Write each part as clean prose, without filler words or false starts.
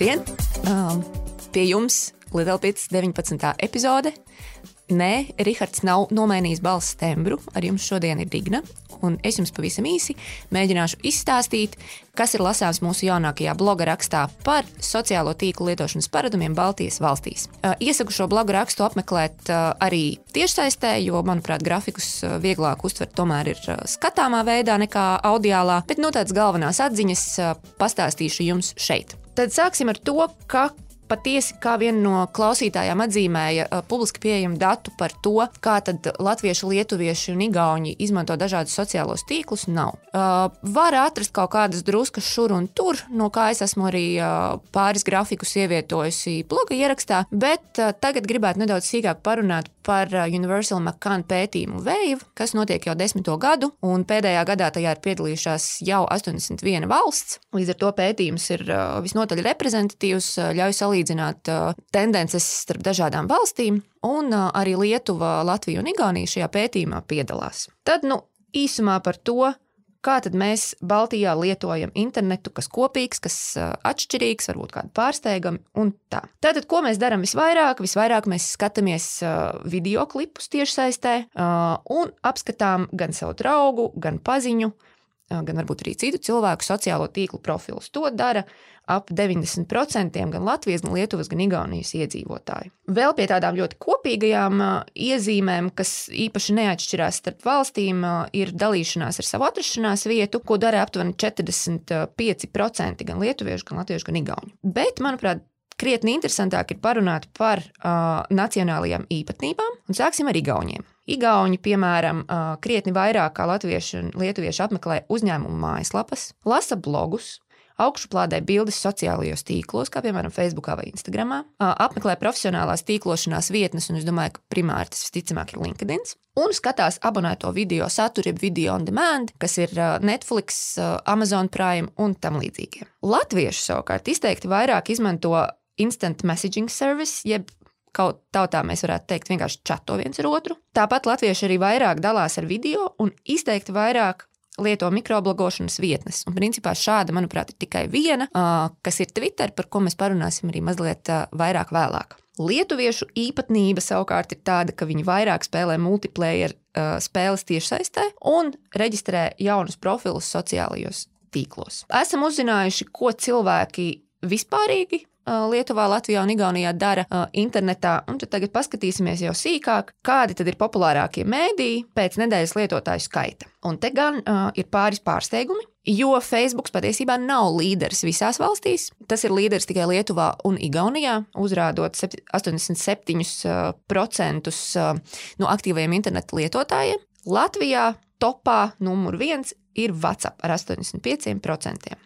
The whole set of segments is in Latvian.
Labdien! Pie jums Lielpils 19. epizode. Nē, Rihards nav nomainījis balss tembru, ar jums šodien ir Digna, un es jums pavisam īsi mēģināšu izstāstīt, kas ir lasāms mūsu jaunākajā bloga rakstā par sociālo tīklu lietošanas paradumiem Baltijas valstīs. Iesaku šo bloga rakstu apmeklēt arī tiešsaistē, jo, manuprāt, grafikus vieglāk uztvert tomēr ir skatāmā veidā nekā audiālā, bet tāds galvenās atziņas pastāstīšu jums šeit. Tad sāksim ar to, ka patiesi, kā viena no klausītājām atzīmēja publiski pieejamu datu par to, kā tad latvieši, lietuvieši un igauņi izmanto dažādus sociālos tīklus, nav. Var atrast kaut kādas druskas šur un tur, no kā es esmu arī pāris grafikus ievietojusi bloga ierakstā, bet tagad gribētu nedaudz sīkāk parunāt par Universal McCann pētījumu Wave, kas notiek jau 10. gadu, un pēdējā gadā tajā ir piedalījušās jau 81 valsts. Līdz ar to pētījums ir visnotaļ reprezentatīvs, ļauj salīdzināt tendences starp dažādām valstīm, un arī Lietuva, Latvija un Igaunija šajā pētījumā piedalās. Tad, īsumā par to, kā tad mēs Baltijā lietojam internetu, kas kopīgs, kas atšķirīgs, varbūt kādu pārsteigami un tā. Tātad, ko mēs darām visvairāk? Visvairāk mēs skatāmies videoklipus tiešsaistē un apskatām gan savu draugu, gan paziņu, gan varbūt arī citu cilvēku sociālo tīklu profilus. To dara ap 90% gan Latvijas, gan Lietuvas, gan Igaunijas iedzīvotāji. Vēl pie tādām ļoti kopīgajām iezīmēm, kas īpaši neatšķirās starp valstīm, ir dalīšanās ar savu atrašanās vietu, ko dara aptuveni 45% gan lietuviešu, gan latviešu, gan igauņu. Bet, manuprāt, krietni interesantāk ir parunāt par nacionālajām īpatnībām, un sāksim ar igauņiem. Igauņi, piemēram, krietni vairāk kā latvieši un lietuvieši apmeklē uzņēmumu mājaslapas, lasa blogus, augšuplādē bildes sociālajos tīklos, kā piemēram Facebookā vai Instagramā, apmeklē profesionālās tīklošanās vietnes, un es domāju, ka primāri tas visticamāk ir LinkedIn, un skatās abonēto video saturu, jeb video on demand, kas ir Netflix, Amazon Prime un tam līdzīgie. Latvieši savukārt izteikti vairāk izmanto instant messaging service, jeb kaut tautā mēs varētu teikt vienkārši čato viens ar otru. Tāpat latvieši arī vairāk dalās ar video un izteikti vairāk lieto mikroblogošanas vietnes. Un principā šāda, manuprāt, ir tikai viena, kas ir Twitter, par ko mēs parunāsim arī mazliet vairāk vēlāk. Lietuviešu īpatnība savukārt ir tāda, ka viņi vairāk spēlē multiplayer spēles tiešsaistē un reģistrē jaunus profilus sociālajos tīklos. Esam uzzinājuši, ko cilvēki vispārīgi Lietuvā, Latvijā un Igaunijā dara internetā, un tad tagad paskatīsimies jau sīkāk, kādi tad ir populārākie mēdīji pēc nedēļas lietotāju skaita. Un te gan ir pāris pārsteigumi, jo Facebook patiesībā nav līderis visās valstīs. Tas ir līderis tikai Lietuvā un Igaunijā, uzrādot 87% no aktīvajiem interneta lietotājiem. Latvijā topā numur 1 ir WhatsApp ar 85%.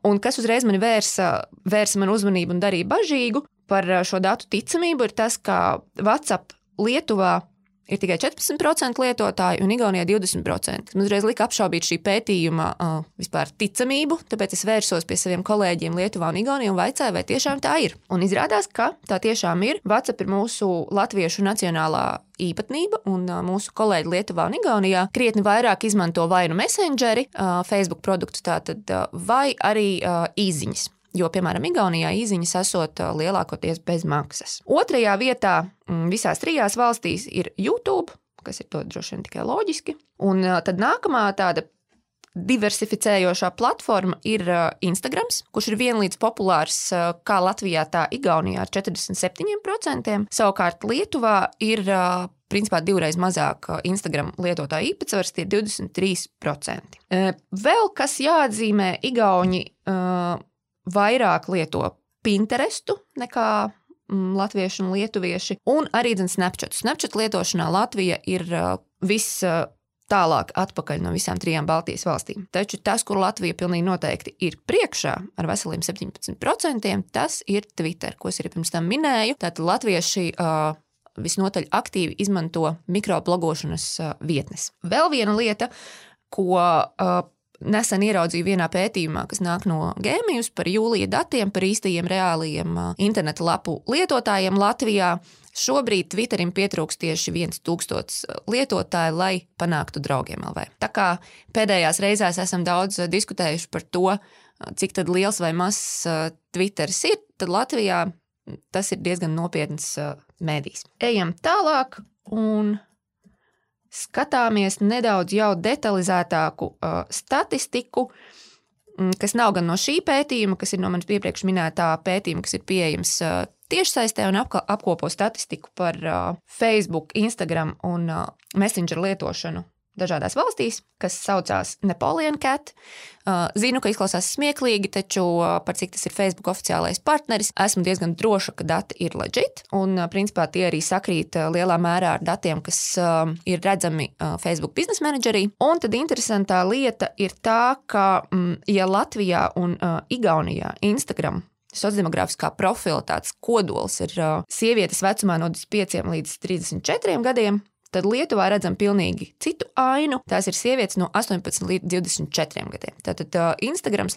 Un kas uzreiz mani vērsa manu uzmanību un darīja bažīgu par šo datu ticamību, ir tas, ka WhatsApp Lietuvā ir tikai 14% lietotāji un Igaunijā 20%. Man uzreiz lika apšaubīt šī pētījuma vispār ticamību, tāpēc es vērsos pie saviem kolēģiem Lietuvā un Igaunijā un vaicāju, vai tiešām tā ir. Un izrādās, ka tā tiešām ir. WhatsApp ir mūsu latviešu nacionālā īpatnība, un mūsu kolēģi Lietuvā un Igaunijā krietni vairāk izmanto vai nu Messengeri, Facebook produktus tātad, vai arī īziņas. Jo, piemēram, Igaunijā īziņas esot lielākoties bez maksas. Otrajā vietā visās 3 valstīs ir YouTube, kas ir to droši vien tikai loģiski. Un tad nākamā tāda diversificējošā platforma ir Instagrams, kurš ir vienlīdz populārs kā Latvijā, tā Igaunijā ar 47%. Savukārt Lietuvā ir principā 2 reizes mazāk Instagram lietotāju īpatsvars, tie ir 23%. Vēl kas jāatzīmē, Igauni vairāk lieto Pinterestu nekā latvieši un lietuvieši, un arī Snapchat. Snapchat lietošanā Latvija ir tālāk atpakaļ no visām 3 Baltijas valstīm. Taču tas, kur Latvija pilnīgi noteikti ir priekšā ar veseliem 17%, tas ir Twitter, ko es arī pirms tam minēju. Tātad latvieši visnotaļ aktīvi izmanto mikroblogošanas vietnes. Vēl viena lieta, ko nesen ieraudzīju vienā pētījumā, kas nāk no Gēmijus par jūlija datiem, par īstajiem reālajiem interneta lapu lietotājiem Latvijā. Šobrīd Twitterim pietrūkst tieši 1000 lietotāju, lai panāktu draugiem LV. Tā kā pēdējās reizēs esam daudz diskutējuši par to, cik tad liels vai mazs Twitteris ir, tad Latvijā tas ir diezgan nopietns mēdījis. Ejam tālāk un skatāmies nedaudz jau detalizētāku statistiku, kas nav gan no šī pētījuma, kas ir no manis iepriekš minētā pētījuma, kas ir pieejams tiešsaistē un apkopo statistiku par Facebook, Instagram un Messenger lietošanu dažādās valstīs, kas saucās Napoleon Cat. Zinu, ka izklausās smieklīgi, taču par cik tas ir Facebook oficiālais partneris, esmu diezgan droša, ka dati ir legit, un principā tie arī sakrīt lielā mērā ar datiem, kas ir redzami Facebook Business Managerī. Un tad interesantā lieta ir tā, ka ja Latvijā un Igaunijā Instagram sociodemogrāfiskā profila tāds kodols ir sievietes vecumā no 25 līdz 34 gadiem, tad Lietuvā redzam pilnīgi citu ainu. Tās ir sievietes no 18 līdz 24 gadiem. Tātad Instagrams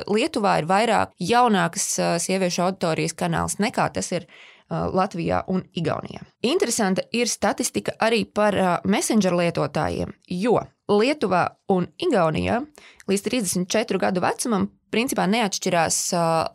Lietuvā ir vairāk jaunākas sieviešu auditorijas kanāls nekā tas ir Latvijā un Igaunijā. Interesanta ir statistika arī par Messenger lietotājiem, jo Lietuvā un Igaunijā līdz 34 gadu vecumam principā neatšķirās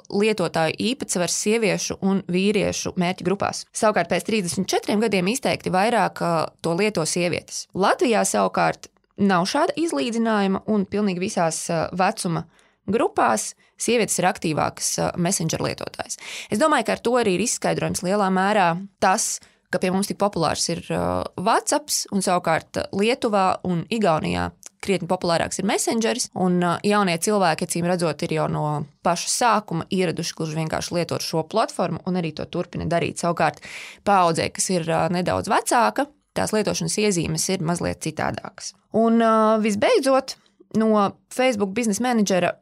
lietotāju īpatsvars sieviešu un vīriešu mērķu grupās. Savukārt pēc 34 gadiem izteikti vairāk to lieto sievietes. Latvijā savukārt nav šāda izlīdzinājuma un pilnīgi visās vecuma grupās sievietes ir aktīvākas Messenger lietotājs. Es domāju, ka ar to arī ir izskaidrojums lielā mērā tas, ka pie mums tik populārs ir WhatsApps un savukārt Lietuvā un Igaunijā krietni populārāks ir Messengeris, un jaunie cilvēki, acīm redzot, ir jau no paša sākuma ieraduši gluži vienkārši lietot šo platformu un arī to turpina darīt. Savukārt paaudzē, kas ir nedaudz vecāka, tās lietošanas iezīmes ir mazliet citādākas. Un visbeidzot, no Facebook Business Managera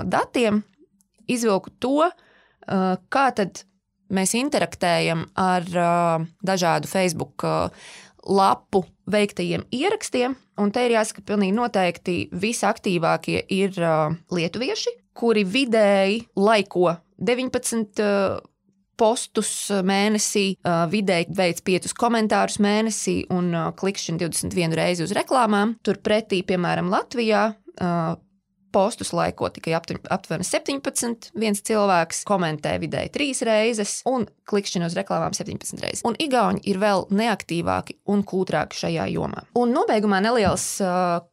datiem izvilku to, kā tad mēs interaktējam ar dažādu Facebook lapu veiktajiem ierakstiem, un te ir jāsaka pilnīgi noteikti visaktīvākie ir lietuvieši, kuri vidēji laiko 19 postus mēnesī, vidēji veic 5 komentārus mēnesī un klikšķina 21 reizi uz reklāmām. Turpretī, piemēram, Latvijā postus laiko tikai aptuveni 17, viens cilvēks komentē vidēji 3 reizes un klikšķina uz reklāmām 17 reizes. Un Igauni ir vēl neaktīvāki un kūtrāki šajā jomā. Un nobeigumā neliels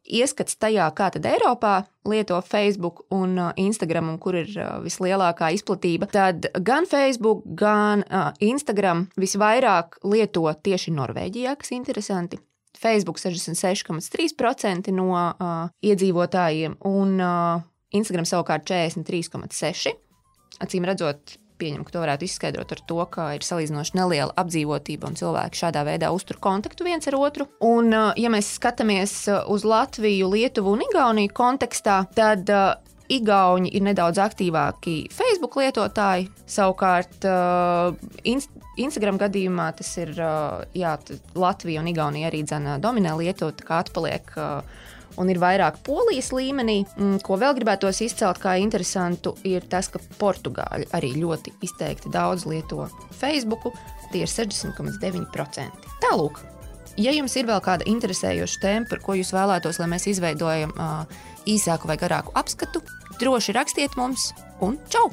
ieskats tajā, kā tad Eiropā lieto Facebook un Instagram un kur ir vislielākā izplatība. Tad gan Facebook, gan Instagram visvairāk lieto tieši Norvēģijā, kas interesanti. Facebook 66,3% no iedzīvotājiem un Instagram savukārt 43,6%. Acīm redzot, pieņemu, ka to varētu izskaidrot ar to, ka ir salīdzinoši neliela apdzīvotība un cilvēki šādā veidā uztur kontaktu viens ar otru. Un, ja mēs skatāmies uz Latviju, Lietuvu un Igauniju kontekstā, tad Igauni ir nedaudz aktīvāki Facebook lietotāji, savukārt Instagram gadījumā tas ir, Latvija un Igaunija arī dominē lietot, kā atpaliek un ir vairāk Polijas līmenī. Ko vēl gribētos izcelt kā interesantu, ir tas, ka Portugāļi arī ļoti izteikti daudz lieto Facebooku, tie ir 60,9%. Tālūk, ja jums ir vēl kāda interesējoša tēma, par ko jūs vēlētos, lai mēs izveidojam īsāku vai garāku apskatu, droši rakstiet mums un čau!